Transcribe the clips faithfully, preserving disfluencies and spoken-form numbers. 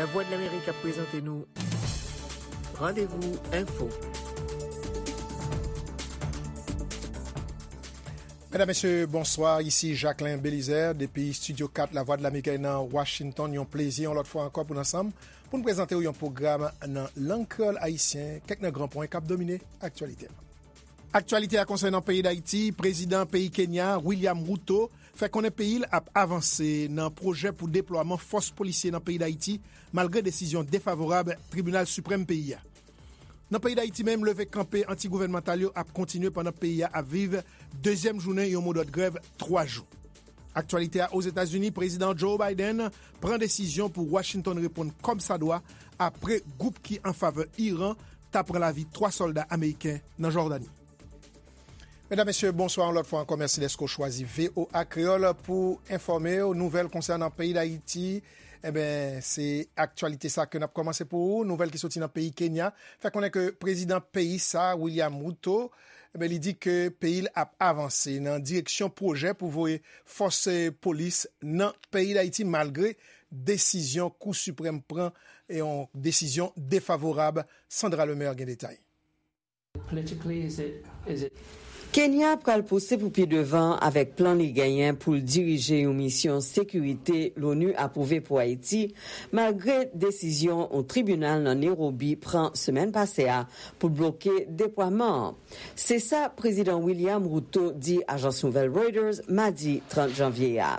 Lavwadlamerik ap prezante nou Randevou Enfo. Medam, mesye, bonswa. Isi Jacquelin Belizaire depi Estidyo kat Lavwadlamerik nan Washington. Yon plezi yon lòt fwa ankò pou n ansanm pou n prezante w yon pwogram nan lang kreyòl ayisyen, kèk nan gran pwen k ap domine aktyalite a. Aktyalite a konsènan peyi Dayiti, prezidan peyi Kenya, William Ruto, fè konnen peyi l ap avanse nan pwojè pou deplwaman fòs polisye nan peyi Dayiti, malgre desizyon defavorab Tribinal Siprèm peyi a. Nan peyi Dayiti menm, leve kanpe anti-gouvènmantal yo ap kontinye pandan peyi a ap viv dezyèm jounen yon modòd grèv twa jou. Aktyalite a Ozetazini, prezidan Joe Biden pran desizyon pou Washington reponn kòmsadwa apre gwoup ki an favè Iran ta pran lavi twa sòlda ameriken nan Jòdani. Medam, mesye, bonswa yon lòt fwa ankò. Mèsi dèske w chwazi V O A Kreyòl pou enfòme w. Nouvèl konsènan peyi Dayiti. Enben, se aktyalite sa ke n ap kòmanse pou ou. Nouvèl ki soti nan peyi Kenya fè konnen ke prezidan peyi sa, William Ruto, enben, li di ke peyi l ap avanse nan direksyon pwojè pou voye fòs, eh, polis nan peyi Dayiti, malgre desizyon Kou Siprèm pran, e yon desizyon defavorab. Sandra Lemaire gen detay. Politically, is it, is it Kenya pral pouse pou pi devan avèk plan li genyen pou l dirije yon misyon sekirite Lonu apwouve pou Ayiti, malgre desizyon yon tribinal nan Nairobi pran semèn pase a pou l bloke deplwaman an. Se sa prezidan William Ruto di ajans nouvèl Reuters madi trant janvye a.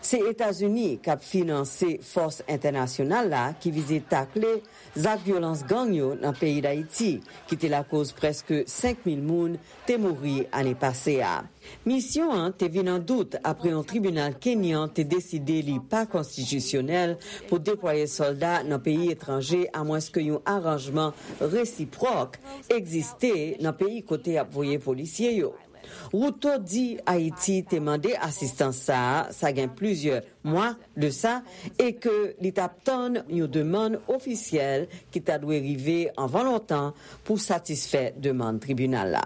Se Etazini k ap finanse fòs entènasyonal la ki vize takle zak vyolans gang yo nan peyi Dayiti, ki te lakoz prèske senk mil moun te mouri ane pase a. Misyon an te vin an dout apre yon tribinal kenyan te deside li pa konstitisyonèl pou deplwaye sòlda nan peyi etranje, amwenske yon aranjman resipwòk egziste nan peyi kote y ap voye polisye yo. Ruto di Ayiti te mande asistans sa a, sa gen plizyè mwa de sa, e ke li t ap tann yon demann ofisyèl ki ta dwe rive anvan lontan pou satisfè demann tribinal la.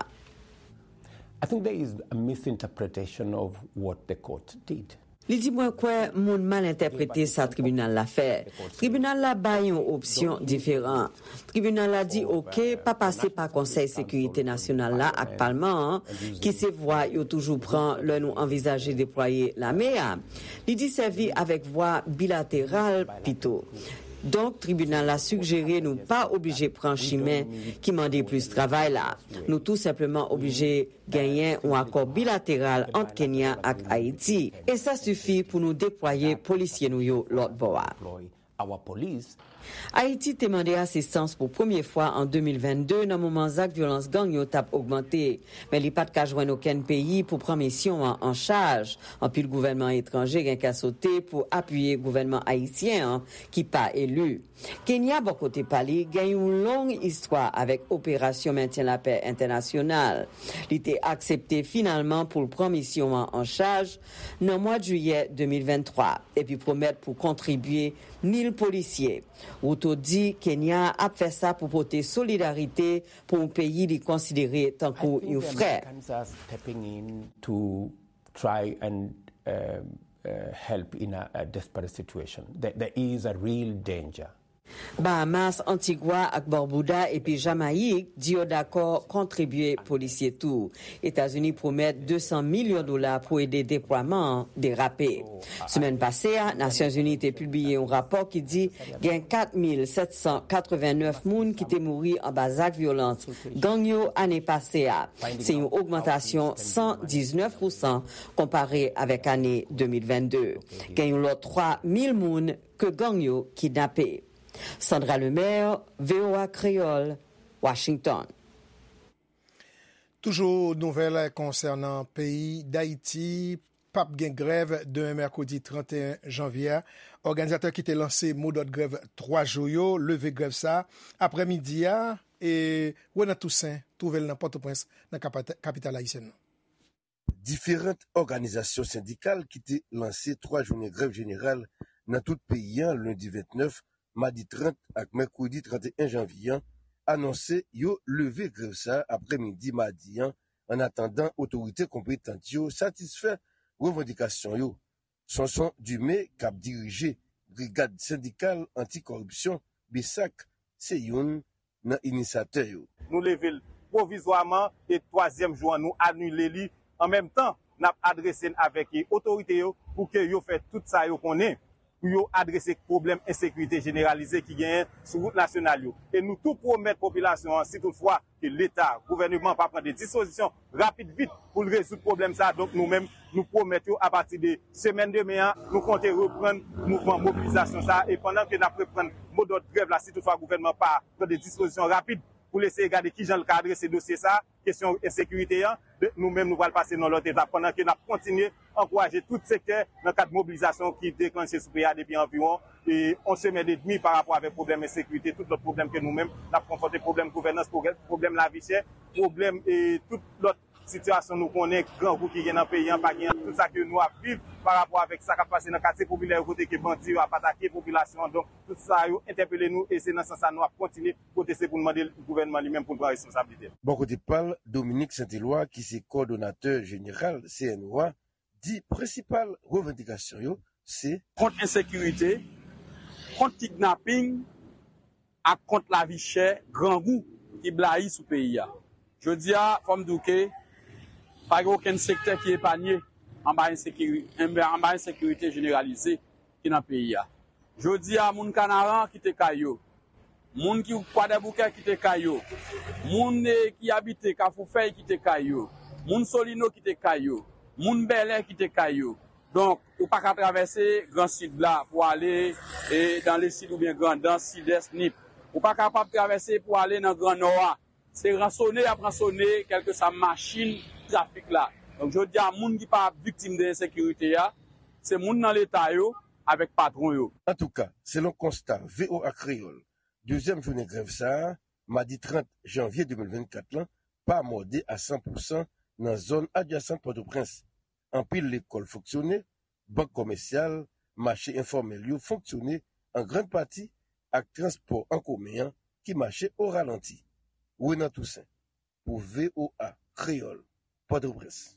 I think there is a misinterpretation of what the court did. Li di, mwen kwè moun mal entèprete sa tribinal la fè. Tribinal la bay yon opsyon diferan. Tribinal la di, oke, pa pase pa Konsèy Sekirite Nasyonal la ak Palman an, ki se vwa yo toujou pran lè nou anvizaje deplwaye lame a. Li di, sèvi avèk vwa bilateral pito. Donk, tribinal la sigjere nou pa oblije pran chimen ki mande plis travay la. Nou tou senpleman oblije genyen yon akò bilateral ant Kenya ak Ayiti, e sa sifi pou nou deplwaye polisye nou yo lòt bò a. Ayiti te mande asistans pou premye fwa an de mil vennde, nan moman zak vyolans gang yo t ap ogmante, men li pa t ka jwenn okenn peyi pou pran misyon an an chaj. Anpil gouvènman etranje gen kè sote pou apiye gouvènman ayisyen an ki pa eli. Kenya, bò kote pa li, gen yon long istwa avèk operasyon mentyen lapè entènasyonal. Li te aksepte finalman pou l pran misyon an an chaj nan mwa jiyè de mil venntwa, epi pwomèt pou kontribye mil polisye. Ruto di Kenya ap fè sa pou pote solidarite pou yon peyi li konsidere tankou yon frè. To try and uh, uh, help in a, a desperate situation. There, there is a real danger. Bahamas, Antigwa ak Barbuda epi Jamayik di yo dakò kontribye polisye tou. Etazini pwomèt de san milyon dola pou ede deplwaman an derape. Semèn pase a, Nasyonzini te pibliye yon rapò ki di gen kat mil sèt san katrevennnèf moun ki te mouri anba zak vyolans gang yo ane pase a. Se yon ogmantasyon san diznèf pousan konpare avèk ane de mil vennde. Gen yon lòt twa mil moun ke gang yo kidnape. Sandra Lemaire, V O A Kreyòl, Washington. Toujou nouvèl konsènan peyi Dayiti, p ap gen grèv demen mèkredi trannteyen janvye a. Òganizatè ki te lanse modòd grèv twa jou yo leve grèv sa a aprèmidi a, e Renan Toussaint twouve l nan Pòtoprens, nan kapita-, kapital ayisyèn nan. Diferan òganizasyon sendikal ki te lanse twa jounen grèv jeneral nan tout peyi a, lendi vennèf, madi trant ak mèkredi trannteyen janvye a, anonse yo leve grèv sa a aprèmidi madi a, annatandan otorite konpetan yo satisfè revandikasyon yo. Sonson Dumé, k ap dirije Brigad Sendikal Anti-Kòripsyon, BSAC, se youn nan inisatè yo. Nou leve l pwovizwaman e twazyèm jou an nou anile li. An menm tan, n ap adrese n avèk otorite yo pou ke yo fè tout sa yo konnen pou yo adrese pwoblèm ensekirite jeneralize ki genyen sou wout nasyonal yo. E nou tou pwomèt popilasyon an, si toutfwa ke Leta, gouvèneman pa pran de dispozisyon rapid vit pou l rezoud pwoblèm sa a, donk nou menm, nou pwomèt yo apati de semèn demen an, nou konte reprann mouvman mobilizasyon sa a. E pandan ke n ap reprann modòd grèv la, si toutfwa gouvènman pa pran de dispozisyon rapid pou l eseye gade kijan l ka adrese dosye sa a, kesyon ensekirite an, nou menm nou pral pase nan lòt etap pandan ke n ap kontinye ankouraje tout sektè nan kad mobilizasyon ki deklanche sou peyi a depi anviwon yon semèn edmi pa rapò avèk pwoblèm ensekirite, tout lòt pwoblèm ke nou menm n ap konfwonte, pwoblèm gouvènans, pwoblèm lavi chè, pwoblèm tout lòt sitiyasyon nou konnen, grangou ki gen nan peyi an, pa gen tout sa ke nou ap viv pa rapò avèk sa k ap pase nan katye popilè yo kote ke bandi yo ap atake popilasyon an. Donk, tout sa yo entèpele nou e se nan sans sa nou ap kontinye pwoteste pou n mande gouvènman li menm pou l pran responsablite l. Bò kote pa l, Dominique Saint-Éloi, ki se kowòdonatè jeneral C N O A, di prensipal revandikasyon yo se. Kont ensekirite, kont kidnaping ak kont lavi chè, grangou ki blayi sou peyi a. Jodi a, fò m di w ke pa gen okenn sektè ki epanye anba ensekiri, anba ensekirite jeneralize ki nan peyi a. Jodi a, moun Kanaran kite kay yo, moun ki Kwadèboukè kite kay yo, moun ki abite Kafou Fèy kite kay yo, moun Solino kite kay yo, moun Bèlè kite kay yo. Donk, ou pa ka travèse Gran Sid la pou ale dan Lesid oubyen Grandans, Sidès, Nip. Ou pa kapab travèse pou ale nan Gran Nò a. Se ransone y ap ransone kèlkeswa machin trafik la. Donk, jodi a, moun ki pa viktim de ensekirite a, se moun nan Leta yo avèk patwon yo. Antouka, selon konsta V O A Kreyòl, dezyèm jounen grèv sa a, madi trant janvye de mil vennkat lan, pa mòde a san pousan nan zòn adjasan Pòtoprens. Anpil lekòl fonksyone, bank kòmèsyal, mache enfòmèl yo fonksyone an grann pati ak transpò an komen an ki mache o ralanti. Renan Toussaint, pou V O A Kreyòl, Pòtoprens.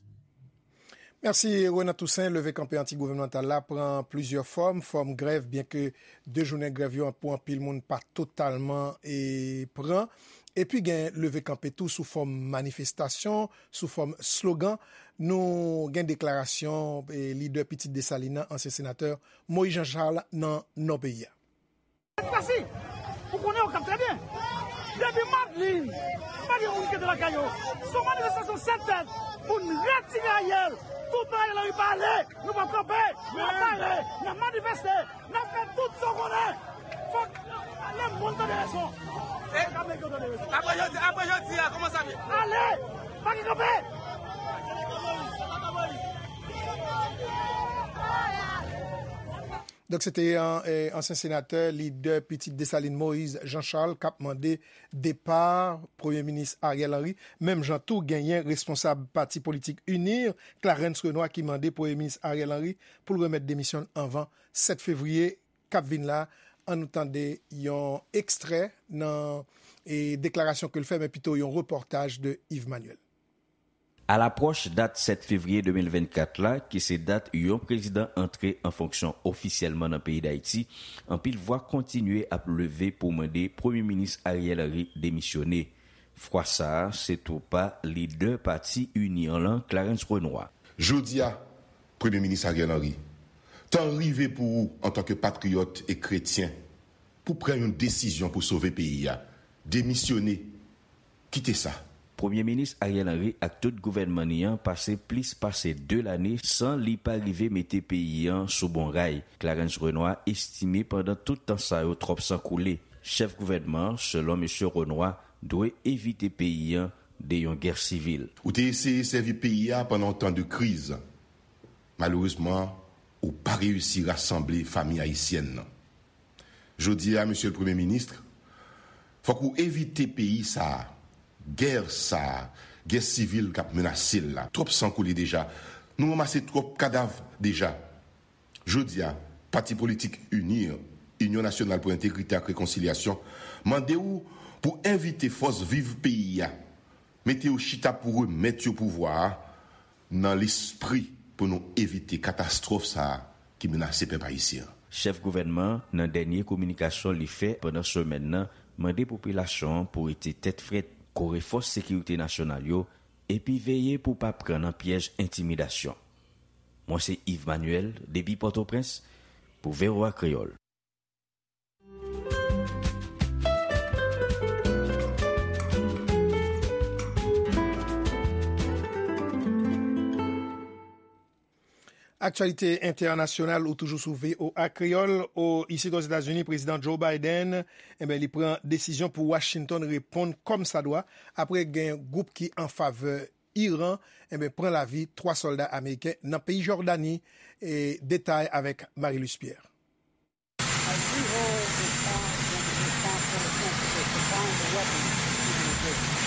Mèsi Renan Toussaint. Leve kanpe anti-gouvènmantal la pran plizyè fòm. Fòm grèv, byenke de jounen grèv yo pou anpil moun pa totalman e pran. Epi gen leve kanpe tou sou fòm manifestasyon, sou fòm slogan. Nou gen deklarasyon e lidè Pitit Desalin nan, ansyen senatè Moïse Jean Charles nan nò peyi a. Pasi, ou konnen Okap trè byen. Depi Madlin, pa gen moun ki rete lakay yo. Se yon manifestasyon sèt tèt pou n retire Ariel. Toutan Ariel Henry pa ale, nou p ap kanpe. N ap pare, n ap manifeste, n ap fè tout sa w konnen. Fòk lemonn tande rezon. Fòk Ameriken tande rezon. Apre jodi, apre jodi a, kòman sa vle? Ale, pa gen kanpe. Donk, se te ansyen senatè, lidè Pitit Desalin Moïse Jean Charles k ap mande depa Premye Minis Ariel Henry. Menm jan tou, genyen responsab pati politik UNIR, Clarens Renois, ki mande Premye Minis Ariel Henry pou l remèt demisyon l anvan sèt fevriye k ap vin la. Ann nou tande yon ekstrè nan deklarasyon ke l fè, men pito yon repòtaj de Yves Manuel. Alapwòch dat sèt fevriye de mil vennkat la, ki se dat yon prezidan antre an fonksyon ofisyèlman nan peyi Dayiti, anpil vwa kontinye ap leve pou mande Premye Minis Ariel Henry demisyone. Fwa sa a, se tou pa lidè pati UNIR lan, Clarens Renois. Jodi a, Premye Minis Ariel Henry, tan rive pou ou, antanke patriyòt e kretyen, pou pran yon desizyon pou sove peyi a. Demisyone. Kite sa. Premye Minis Ariel Henry ak tout gouvènman ni an pase plis pase de lane san li pa rive mete peyi an sou bon ray. Clarens Renois estime pandan tout tan sa yo twòp san koule. Chèf gouvènman an, selon mesye Renois, dwe evite peyi an de yon gè sivil. Ou te eseye sèvi peyi a pandan yon tan de kriz. Malerezman, ou pa reyisi rasanble fanmi ayisyèn nan. Jodi a, Mesye Premye Minis, fòk ou evite peyi sa a, gè sa a, gè sivil k ap menase l la. Twòp san koule deja. Nou ranmase twòp kadav deja. Jodi a, pati politik UNIR, Inyon Nasyonal pou Entegrite ak Rekonsilyasyon, mande w pou envite fòs viv peyi a, mete yo chita pou remèt yo pouvwa a nan lespri pou nou evite katastwòf sa a ki menase pèp ayisyen an. Chèf gouvènman an, nan dènye kominikasyon li fè pandan semèn nan, mande popilasyon an pou rete tèt frèt, kore fòs sekirite nasyonal yo, epi veye pou pa pran nan pyèj entimidasyon. Mwen se Yves Manuel, depi Pòtoprens, pou V O A Kreyòl. Aktyalite entènasyonal ou toujou sou V O A Kreyòl. O, isit Ozetazini, Prezidan Joe Biden, enben, li pran desizyon pou Washington reponn kòmsadwa apre gen gwoup ki an favè Iran, enben, pran lavi twa sòlda ameriken nan peyi Jòdani. E detay avèk Marie-Luce Pierre.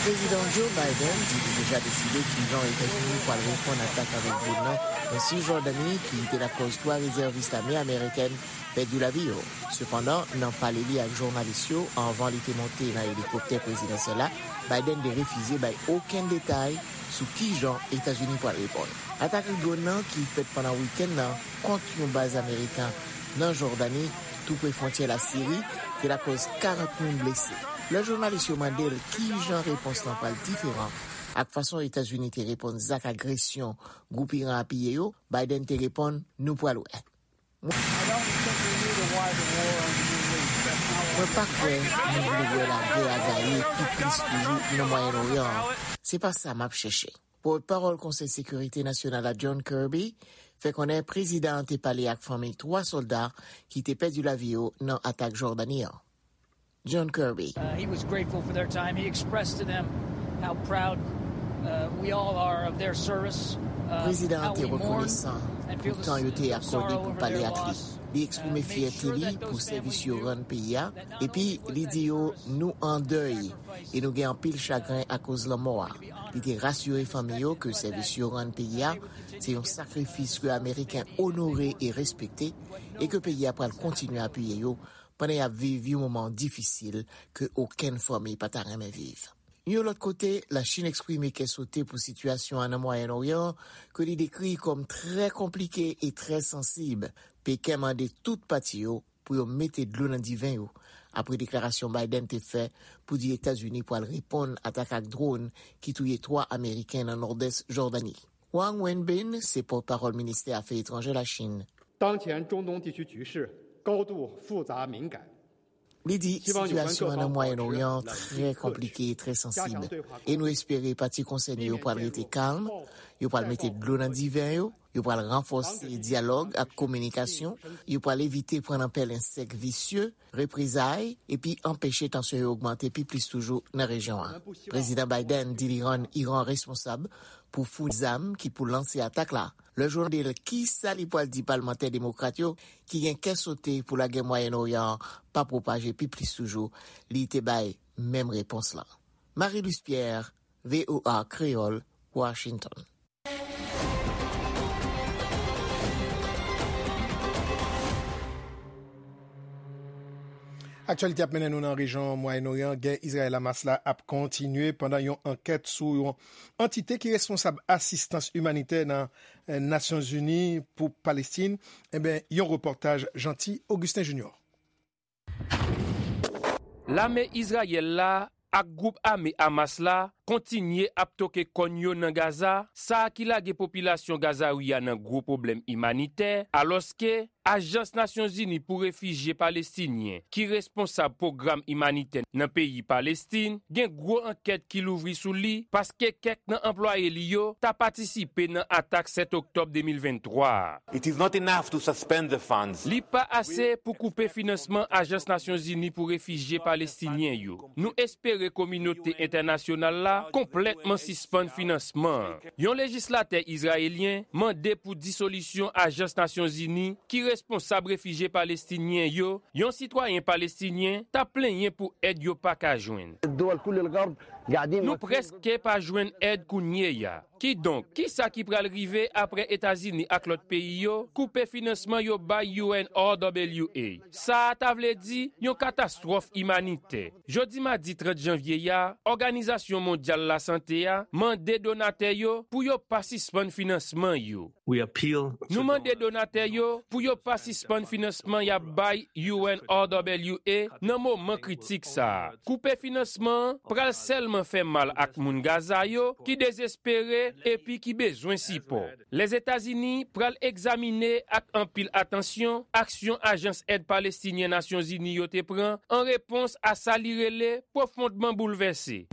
Prezidan Joe Biden di li deja deside kijan Etazini pral reponn atak avèk dwòn nan nan Sijòdani, ki te lakòz twa rezèvis lame amerikèn pèdi lavi yo. Sepandan, nan pale li ak jounalis yo anvan li te monte nan elikoptè prezidansyèl la, Biden te refize bay okenn detay sou kijan Etazini pral reponn. Atak dwòn nan ki fèt pandan wikenn nan kont yon baz ameriken nan Jòdani, tou pre fwontyè Lasiri, te lakòz karant moun blese. Lè jounalis yo mande l kijan repons lan pral diferan ak fason Etazini te reponn zak agresyon gwoup Iran apiye yo, Biden te reponn, "Nou pral wè." Mwen pa kwè nou vle wè lagè a gaye pi plis toujou nan Mwayen Oryan an. Se pa sa m ap chèche. Pòtpawòl Konsèy Sekirite Nasyonal la, John Kirby, fè konnen prezidan an te pale ak fanmi twa sòlda ki te pèdi lavi yo nan atak Jòdani an. John Kirby. Uh, he was grateful for their time. He expressed to them how proud uh, we all are of their service. Uh, Prezidan an te rekonesan pou tan yo te akòde pou pale ak li. Li eksprime fyète li pou sèvis yo rann peyi a, epi li di yo, "Nou an dèy e nou gen anpil chagren akoz lanmò a." Li te rasire fanmi yo ke sèvis yo rann peyi a se yon sakrifis ke Ameriken onore e respekte, e ke peyi a pral kontinye apiye yo pandan y ap viv yon moman difisil ke okenn fanmi pa ta renmen viv. Yon lòt kote, Lachin eksprime kè sote pou sitiyasyon an nan Mwayen Oryan an, ke li dekri kòm trè konplike e trè sansib. Peken mande tout pati yo pou yo mete dlo nan diven yo, apre deklarasyon Biden te fè pou di Etazini pral reponn atak ak dwòn ki touye twa Ameriken nan nòdès Jòdani. Wang Wenbin se pòtpawòl ministè afè etranjè Lachin. 当前中东地区局势高度复杂敏感， Li di sitiyasyon an nan Mwayen Oryan an trè konplike e trè sansib, e nou espere pati konsène yo pral rete kalm, yo pral mete dlo nan diven yo, yo pral ranfòse dyalòg ak kominikasyon, yo pral evite pran nan pèlen sèk visye, reprezay, epi anpeche tansyon yo ogmante pi plis toujou nan rejyon an. Prezidan Biden di li rann Iran responsab pou founi zam ki pou lanse atak la. Lè yo mande l kisa li pral di palmantè demokrat yo ki gen kè sote pou lagè Mwayen Oryan an pa pwopaje pi plis toujou, li te bay menm repons lan. Marie-Luce Pierre, V O A Kreyòl, Washington. Aktyalite ap mennen nou nan rejyon Mwayen Oryan. Gè Izrayèl-Hamas la ap kontinye pandan yon ankèt sou yon antite ki responsab asistans imanitè nan eh, Nasyonzini pou Palestin. Enben, yon repòtaj Jeanty Augustin Junior. Lame Izrayèl la ak gwoup ame Hamas la kontinye ap toke kòn yo nan Gaza, sa ki lage popilasyon Gazawi a nan gwo pwoblèm imanitè, alòske Ajans Nasyonzini pou Refijye Palestinyen, ki responsab pwogram imanitè nan peyi Palestin, gen gwo ankèt ki louvri sou li, paske kèk nan anplwaye li yo ta patisipe nan atak sèt oktòb de mil venntwa a. Li pa ase pou koupe finansman Ajans Nasyonzini pou Refijye Palestinyen yo. Nou espere kominote entènasyonal la konplètman sispann finansman an. Yon lejislatè izrayelyen mande pou disolisyon Ajans Nasyonzini ki responsab refijye palestinyen yo, yon sitwayen palestinyen t ap plenyen pou èd yo pa ka jwenn. Nou prèske pa jwenn èd kounye a. Kidonk, kisa ki pral rive apre Etazini ak lòt peyi yo koupe finansman yo bay U N R W A? Sa a ta vle di yon katastwòf imanitè. Jodi madi trant janvye a, Òganizasyon Mondyal Lasante a mande donatè yo pou yo pa sispann finansman yo. Nou mande donatè yo pou yo pa sispann finansman y ap bay U N R W A nan moman kritik sa a. Koupe finansman an pral sèlman fè mal ak moun Gaza yo ki dezespere epi ki bezwen sipò. Lèzetazini pral egzamine ak anpil atansyon aksyon Ajans Èd Palestinyen Nasyonzini yo te pran an repons a sa li rele pwofondman boulvèse.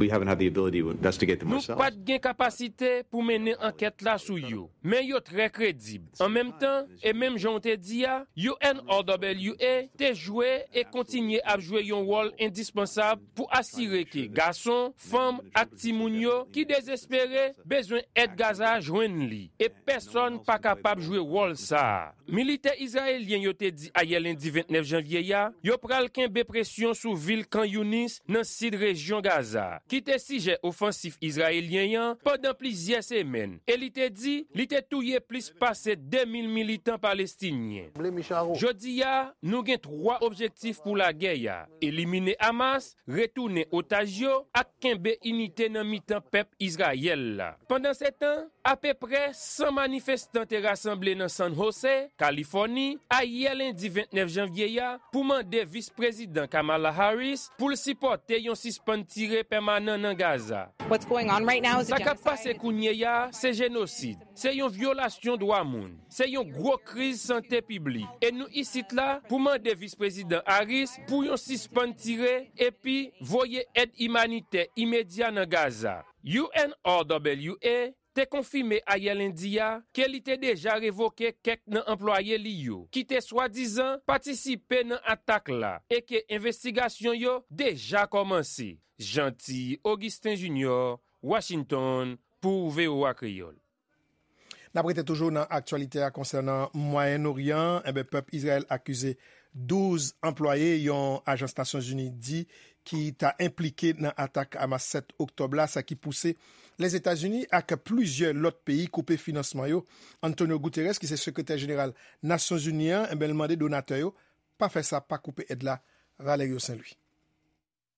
Nou pa t gen kapasite pou mennen ankèt la sou yo, men yo trè kredib. An menm tan, e menm jan w te di a, U N R W A te jwe e kontinye ap jwe yon wòl endispansab pou asire ke gason, fanm ak timoun yo ki dezespere bezwen èd Gaza jwenn li, e pèsonn pa kapab jwe wòl sa a. Militè izrayelyen yo te di ayè lendi vennèf janvye a, yo pral kenbe presyon sou vil Khan Younis nan sid rejyon Gaza, ki te sijè ofansif izrayelyen an pandan plizyè semèn, e li te di li te touye plis pase de mil militan palestinyen. Jodi a, nou gen twa objektif pou lagè a: elimine Hamas, retounen otaj yo, ak kenbe inite nan mitan pèp Izrayèl la. Pandansetan, apeprè san manifestan te rasanble nan San Jose, Kalifòni, ayè lendi vennèf janvye a pou mande vis prezidan Kamala Harris pou l sipòte yon sispann tire pèmanan nan Gaza. Sa k ap pase kounye a se jenosid. Se yon vyolasyon dwa moun. Se yon gwo kriz sante piblik. E nou isit la pou mande vis prezidan Harris pou yon sispann tire epi voye èd imanitè imedya nan Gaza. U N R W A te konfime ayè lendi a ke li te deja revoke kèk nan anplwaye li yo ki te swadizan patisipe nan atak la e ke envestigasyon yo deja kòmanse. Jeanty Augustin Junior, Washington, pou V O A Kreyòl. N ap rete toujou nan aktyalite a konsènan Mwayen Oryan. Enben, pèp Izrayèl akize douz anplwaye yon ajans Nasyonzini di ki ta enplike nan atak Hamas sèt oktòb la, sa ki pouse Lèzetazini ak plizyè lòt peyi koupe finansman yo. Antonio Guterres, ki se sekretè jeneral Nasyonzini an, enben, l mande donatè yo pa fè sa, pa koupe èd la. Valerio Saint Louis.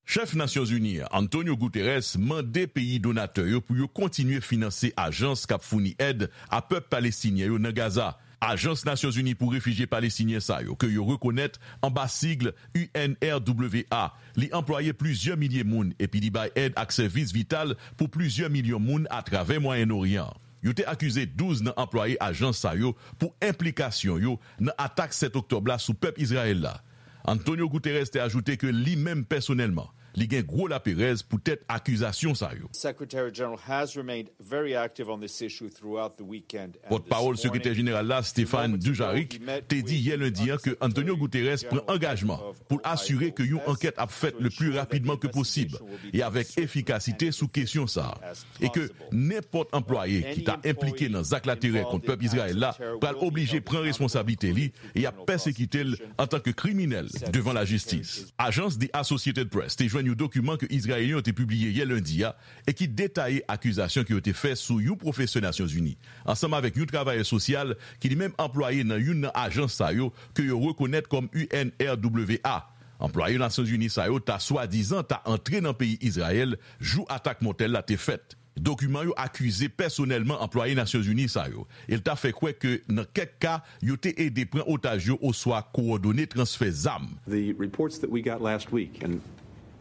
Chèf Nasyonzini an, Antonio Guterres, mande peyi donatè yo pou yo kontinye finanse ajans k ap founi èd a pèp palestinyen yo nan Gaza. Ajans Nasyonzini pou Refijye Palestinyen sa yo, ke yo rekonèt anba sig U N R W A, li anplwaye plizyè milye moun epi li bay èd ak sèvis vital pou plizyè milyon moun atravè Mwayen Oryan an. Yo te akize douz nan anplwaye ajans sa yo pou enplikasyon yo nan atak sèt oktòb la sou pèp Izrayèl la. Antonio Guterres te ajoute ke li menm pèsonèlman, li gen gwo laperèz poutèt akizasyon sa yo. Secretary General has remained very active on this issue throughout the weekend. Pòtpawòl sekretè jeneral la, Stéphane Dujarric, te di yè lendi an ke Antonio Guterres pran angajman pou l asire ke yon ankèt ap fèt le pli rapidman ke posib e avèk efikasite sou kesyon sa a, e ke nenpòt anplwaye ki ta enplike nan zak laterè kont pèp Izrayèl la pral oblije pran responsablite li e y ap pèsekite l antanke kriminèl devan lajistis. Ajans The Associated Press te jwenn yon dokiman ke Izrayelyen yo te pibliye yè lendi a e ki detaye akizasyon ke yo te fè sou yon pwofesè Nasyonzini, ansanm avèk yon travayè sosyal ki li menm anplwaye nan youn nan ajans sa yo ke yo rekonèt kòm U N R W A. Anplwaye Nasyonzini sa yo ta swadizan ta antre nan peyi Izrayèl jou atak mòtèl la te fèt. Dokiman yo akize pèsonèlman anplwaye Nasyonzini sa yo, e l ta fè kwè ke nan kèk ka, yo te ede pran otaj yo oswa kowòdone transfè zam. The reports that we got last week, and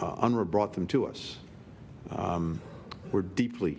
uh, UNRWA brought them to us, um, were deeply,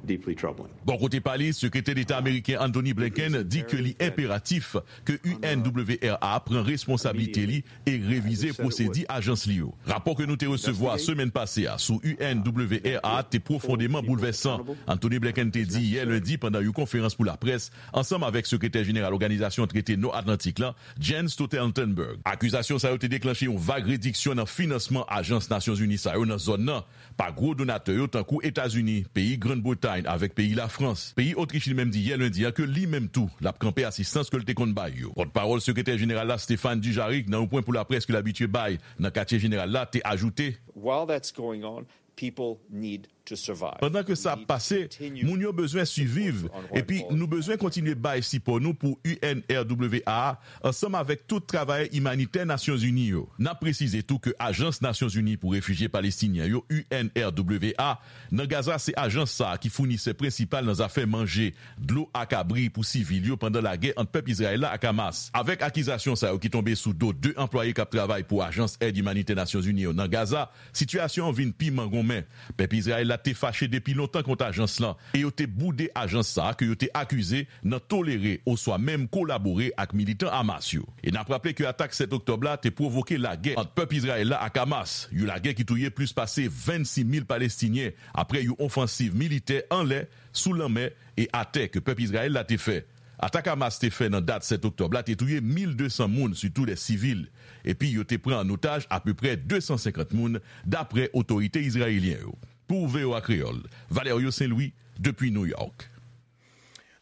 deeply troubling. Bò kote pa li, Sekretè Deta ameriken Anthony Blinken di ke li enperatif ke U N W R A pran responsablite li e revize pwosedi ajans li yo. Rapò ke nou te resevwa semèn pase a sou U N W R A te pwofondeman boulvèsan. Anthony Blinken te di yè lendi pandan yon konferans pou laprès, ansanm avèk Sekretè Jeneral Òganizasyon Trete Nò Atlantik la, Jens Stoltenberg. Akizasyon sa yo te deklanche yon vag rediksyon nan finansman ajans Nasyonzini sa yo nan zòn nan pa gwo donatè yo tankou Etazini, peyi Grann Bretay avèk peyi Lafrans. Peyi Otrich li menm di yè lendi a ke li menm tou l ap kanpe asistans ke l te konn bay yo. Pòtpawòl Sekretè Jeneral la, Stéphane Dujarric, nan yon pwen pou laprès ke l abitye bay nan katye jeneral la, te ajoute, While that's going on, people need Pandan ke sa ap pase, moun yo bezwen siviv, epi nou bezwen kontinye bay sipò nou pou U N R W A a, ansanm avèk tout travayè imanitè Nasyonzini yo. N ap presize tou ke Ajans Nasyonzini pou Refijye Palestinyen yo, U N R W A, nan Gaza, se ajans sa a ki founisè prensipal nan zafè manje, dlo ak abri pou sivil yo pandan lagè ant pèp Izrayèl la ak Hamas. Avèk akizasyon sa yo ki tonbe sou do de anplwaye k ap travay pou ajans èd imanitè Nasyonzini yo nan Gaza, sitiyasyon an vin pi mangonmen. Pèp Izrayèl la te fache depi lontan kont ajans lan, e yo te boude ajans sa a ke yo te akize nan tolere oswa menm kolabore ak militan Hamas yo. E n ap raple ke atak sèt oktòb la te pwovoke lagè ant pèp Izrayèl la ak Hamas, yon lagè ki touye plis pase vennsis mil Palestinyen apre yon ofansiv militè anlè, sou lanmè e atè ke pèp Izrayèl la te fè. Atak Hamas te fè nan dat sèt oktòb la te touye mil de san moun, sitou de sivil, epi yo te pran an otaj apeprè de san senkant moun, dapre otorite izrayelyen yo. Pou V O A Kreyòl, Valerio Saint-Louis, depi New York.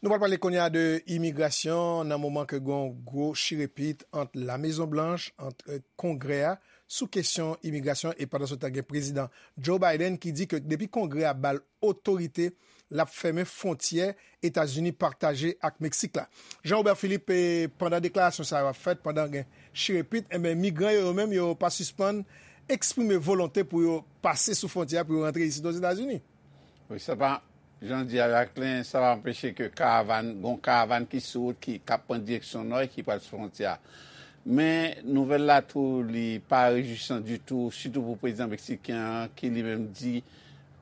Nou pral pale kounye a de imigrasyon nan moman ke gen yon gwo chirepit ant La Mezon Blanch, ant Kongrè a, sou kesyon imigrasyon, e pandan se tan gen Prezidan Joe Biden ki di ke depi Kongrè a ba l otorite, l ap fèmen fwontyè Etazini pataje ak Meksik la. Jean Robert Philippe, e, pandan deklarasyon sa yo ap fèt, pandan gen chirepit, enben, migran yo, yo menm, yo pa sispann eksprime volonte pou yo pase sou fwontyè a, pou yo rantre isit Ozetazini. Wi, sa pa, jan w di a, Jacquelin, sa pa anpeche ke karavàn, gon karavàn ki sou wout, ki, k ap pran direksyon nò e ki pral sou fwontyè a. Men, nouvèl la tou, li pa rejwisan ditou, sitou pou prezidan meksiken an, ki li menm di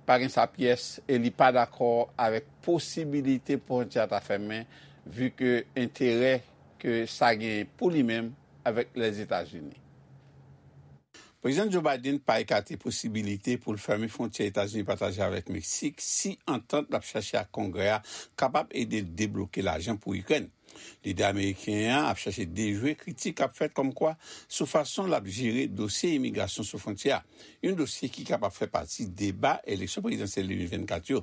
pa gen sa pyès e li pa dakò avèk posibilite pou fwontyè a ta fèmen, vi ke enterè ke sa genyen pou li menm avèk Lèzetazini. Prezidan Joe Biden pa ekate posibilite pou l fèmen fwontyè Etazini pataje avèk Meksik si antant l ap chache ak Kongrè a kapab ede l debloke lajan pou Ikrèn. Lidè ameriken an ap chache dejwe kritik k ap fèt kòmkwa sou fason l ap jere dosye imigrasyon sou fwontyè a, yon dosye ki kapab fè pati deba eleksyon prezidansyèl de mil vennkat yo.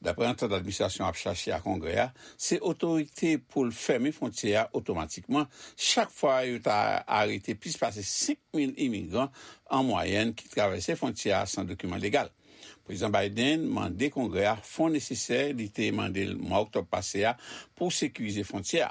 Dapre antant administrasyon ap chache ak Kongrè a, se otorite pou l fèmen fwontyè a otomatikman chak fwa yo ta arete plis pase senk mil imigran an mwayèn ki travèse fwontyè a san dokiman legal. Prezidan Biden mande Kongrè a fon nesesè li te mande l mwa oktòb pase a pou sekirize fwontyè a.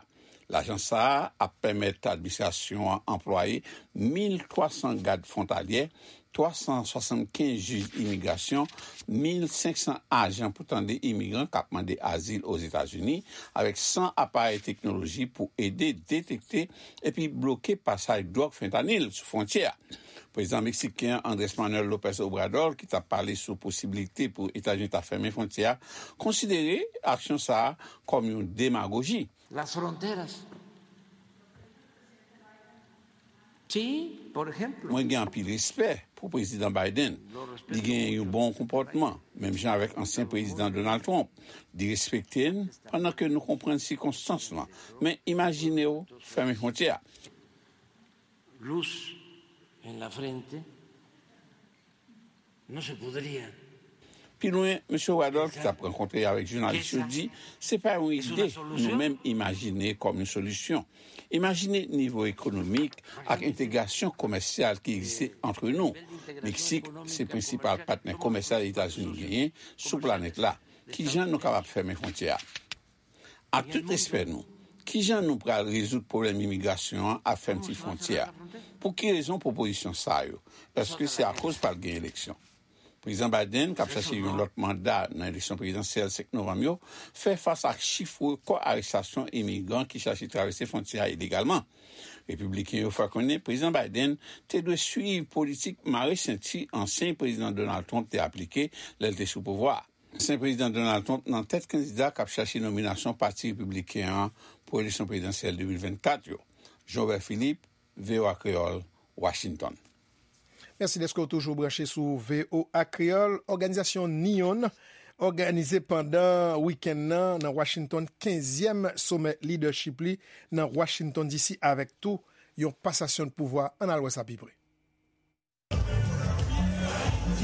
Lajan sa a ap pèmèt administrasyon an anplwaye mil twa san gad fwontalyè, twa san swasannkenz jij imigrasyon, mil senk san ajan pou tande imigran k ap mande azil Ozetazini, avèk san aparèy teknoloji pou ede detekte epi bloke pasaj dwòg fentanyl sou fwontyè a. Prezidan meksiken an, Andrés Manuel López Obrador, ki t ap pale sou posiblite pou Etazini ta fèmen fwontyè a, konsidere aksyon sa a kòm yon demagoji. Las fronteras. Sí, por ejemplo. Mwen gen anpil respè pou Prezidan Biden. Li gen yon bon konpòtman, menm jan avèk ansyen Prezidan Donald Trump. Li respekte n pandan ke nou konprann sikonstans lan. Men imajine w fèmen fwontyè a. Luz en la frente. No se podría. Pi lwen, mesye Obrador, ki t ap rankontre avèk jounalis yo, di se pa yon ide nou menm imajine kòm yon solisyon. Imajine nivo ekonomik ak entegrasyon komèsyal ki egziste ant nou. Meksik se prensipal patnè komèsyal Etazini genyen sou planèt la. Kijan nou kapab fèmen fwontyè a? Ak tout respè nou, kijan nou pral rezoud pwoblèm imigrasyon an ak fèmti fwontyè a? Pou ki rezon pwopozisyon sa yo? Èske se akoz pral gen eleksyon? Prezidan Biden, k ap chache yon lòt manda nan eleksyon prezidansyèl senk novanm yo, fè fas ak chif rekò arestasyon imigran ki chache travèse fwontyè a ilegalman. Repibliken yo fè konnen Prezidan Biden te dwe swiv politik mare senti ansyen Prezidan Donald Trump te aplike lè l te sou pouvwa a. Ansyen Prezidan Donald Trump nan tèt kandida k ap chache nominasyon Pati Repibliken an pou eleksyon prezidansyèl de mil vennkat yo. Jean Robert Philippe, V O A Kreyòl, Washington. Mèsi dèske w toujou branche sou V O A Kreyòl. Òganizasyon NEON òganize pandan wikenn nan, nan Washington, kenzyèm somè lidèchip li nan Washington D C avèk tou yon pasasyon de pouvwa. Ann al wè sa pi pre.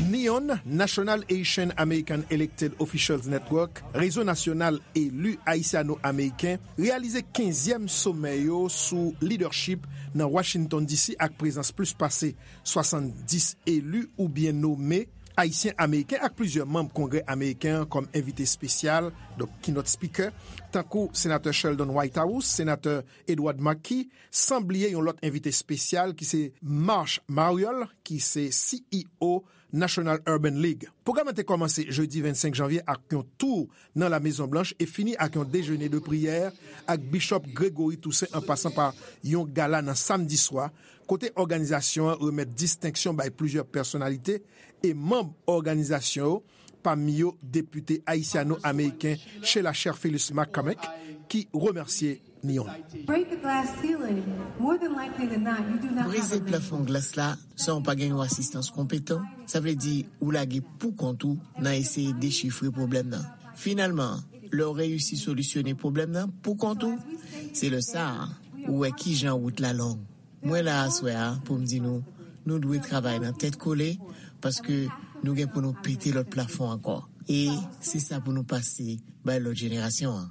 NEON, National Asian American Elected Officials Network, Rezo Nasyonal Eli Ayisyano-Ameriken, reyalize kenzyèm somè yo sou lidèchip nan Washington D C ak prezans plis pase swasanndis eli oubyen nome Ayisyen Ameriken ak plizyè manm Kongrè Ameriken an kòm envite espesyal, donk keynote speaker, tankou Senatè Sheldon Whitehouse, Senatè Edward Markey, san bliye yon lòt envite espesyal ki se Marsh Mariol, ki se C E O National Urban League. Pwogram nan te kòmanse jedi vennsenk janvye ak yon tou nan La Mezon Blanch e fini ak yon dejene de priyè ak Bishop Gregory Toussaint an pasan pa yon gala nan samdi swa, kote òganizasyon an remèt distenksyon bay plizyè pèsonalite e manm òganizasyon yo, pami yo depite ayisyano-ameriken Sheila Cherfilus McCormick, ki remèsye Neon. Break the glass ceiling. More than likely than not, you do not have a mentor. Brize plafon glas la san w pa gen yon asistans konpetan, sa vle di ou lage pou kont ou nan eseye dechifre pwoblèm nan. Finalman, lè w reyisi solisyone pwoblèm nan pou kont ou, se lè sa a ou wè kijan wout la long. Mwen la aswè a pou m di nou, nou dwe travay nan tèt kole, paske nou gen pou nou pete lòt plafon ankò. E se sa pou nou pase bay lòt jenerasyon an.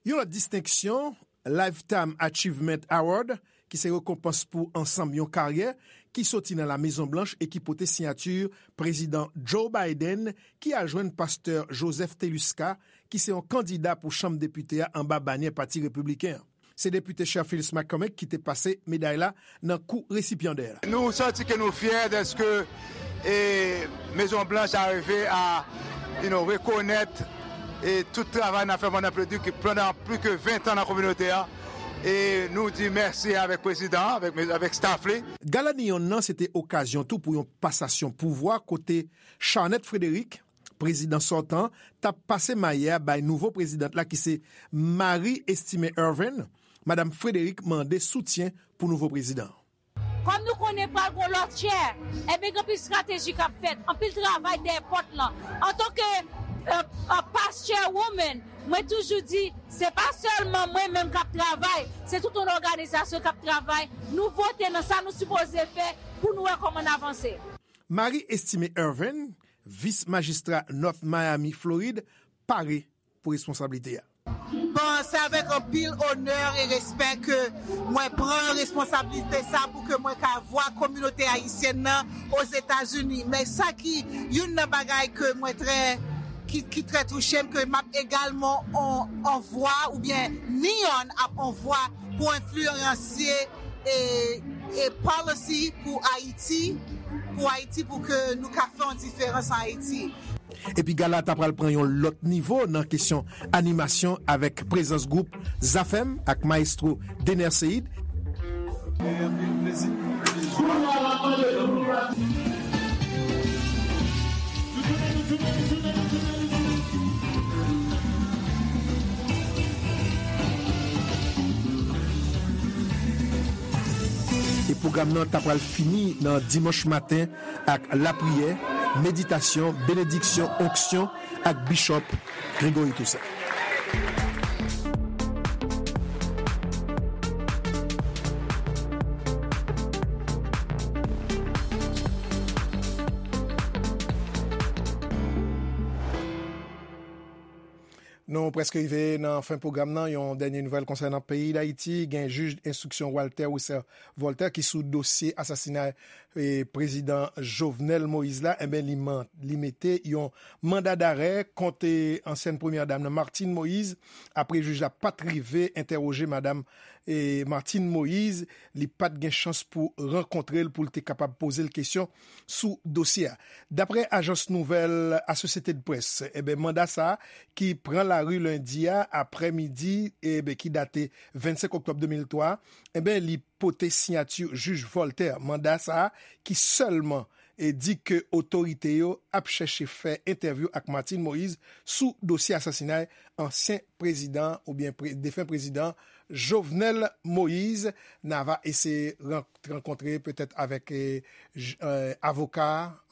Yon lòt distenksyon, Lifetime Achievement Award, ki se rekonpans pou ansanm yon karyè, ki soti nan La Mezon Blanch e ki pote siyati Prezidan Joe Biden, ki al jwenn Pastè Joseph Teluska, ki se yon kandida pou Chanm Depite a anba banyè Pati Repibliken an. Se depite Cherfilus McCormick ki te pase meday la nan kou resipyandè a. Nou santi ke nou fyè dèske, e, Mezon Blanch a rive a, you know, rekonèt, e, tout travay n ap fè pandan pli, pandan pli ke ven tan nan kominote a. E nou di mèsi avèk prezidan an, avèk, avèk staff li. Gala Neon nan se te okazyon tou pou yon pasasyon pouvwa kote Charnette Frederick, prezidan sòtan, t ap pase maye a bay nouvo prezidant la ki se Marie Estimé Ervin. Madanm Frederick mande soutyen pou nouvo prezidan. Kòm nou konnen pral gon lòt chair, ebyen gen anpil estrateji k ap fèt, anpil travay dèyè pòt lan. Antanke, euh, euh, past chairwoman, mwen toujou di, se pa sèlman mwen menm k ap travay, se tout yon òganizasyon k ap travay. Nou vote nan sa nou sipoze fè pou nou wè kòman n avanse. Marie Estimé Ervin, vis majistra North Miami, Florid, pare pou responsablite a. Bon, se avèk anpil onè e respè ke mwen pran responsablite sa pou ke mwen ka vwa kominote ayisyèn nan Ozetazini. Men sa ki youn nan bagay ke mwen trè, ki, ki trè touche m, ke m ap egalman on, on vwa oubyen Neon ap on vwa pou enfliyansye e, e policy pou Ayiti, pou Ayiti, pou ke nou ka fè yon diferans an Ayiti. Epi gala ta pral pran yon lòt nivo nan kesyon animasyon avèk prezans gwoup Zafèm ak Maestro Dener Ceïd. E pwogram nan ta pral fini nan dimanch maten ak lapriyè, meditasyon, benediksyon, onksyon ak Bishop Gregory Toussaint. Nou prèske rive nan fen pwogram nan. Yon dènye nouvèl konsènan peyi Dayiti. Gen jij enstriksyon Walter Wesser Voltaire ki sou dosye asasinay, e, prezidan Jovenel Moïse la. Enben, li man-, li mete yon manda darè kont, e, ansyèn premyè dam nan, Martine Moïse, apre jij la pa t rive entèwoje madanm, e, Martine Moïse, li pa t gen chans pou rankontre l pou l te kapab poze l kesyon sou dosye a. Daprè ajans nouvèl Associated Press, enben, manda sa a ki pran lari lendi a aprèmidi, enben, ki date vennsenk oktòb de mil twa, enben, li pote siyati jij Voltaire. Manda sa a ki sèlman, e, di ke otorite yo ap chèche fè entèvyou ak Martine Moïse sou dosye asasinay ansyen prezidan oubyen pre-, defen prezidan Jovenel Moïse. N a va eseye ran-, rankontre petèt avèk, e, j-, e, avoka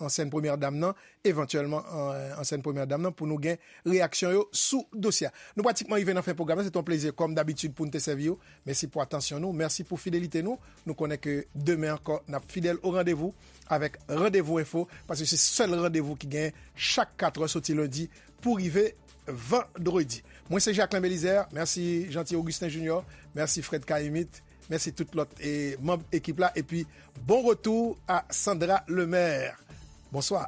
ansyèn premyè dam nan, evantyèlman, e, ansyèn premyè dam nan, pou nou gen reyaksyon yo sou dosye a. Nou pratikman rive nan fen pwogram nan. Se te yon plezi, kòm dabitid, pou n te sèvi w. Mèsi pou atansyon nou. Mèsi pou fidelite nou. Nou konnen ke demen ankò, n ap fidèl o randevou avèk Randevou Enfo, paske se sèl randevou ki genyen chak katrè soti lendi pou rive vandredi. Mwen se Jacquelin Belizaire. Mèsi Jeanty Augustin Junior. Mèsi Fred Caïmite. Mèsi tout lòt e manm ekip la. Epi bon retou a Sandra Lemaire. Bonswa.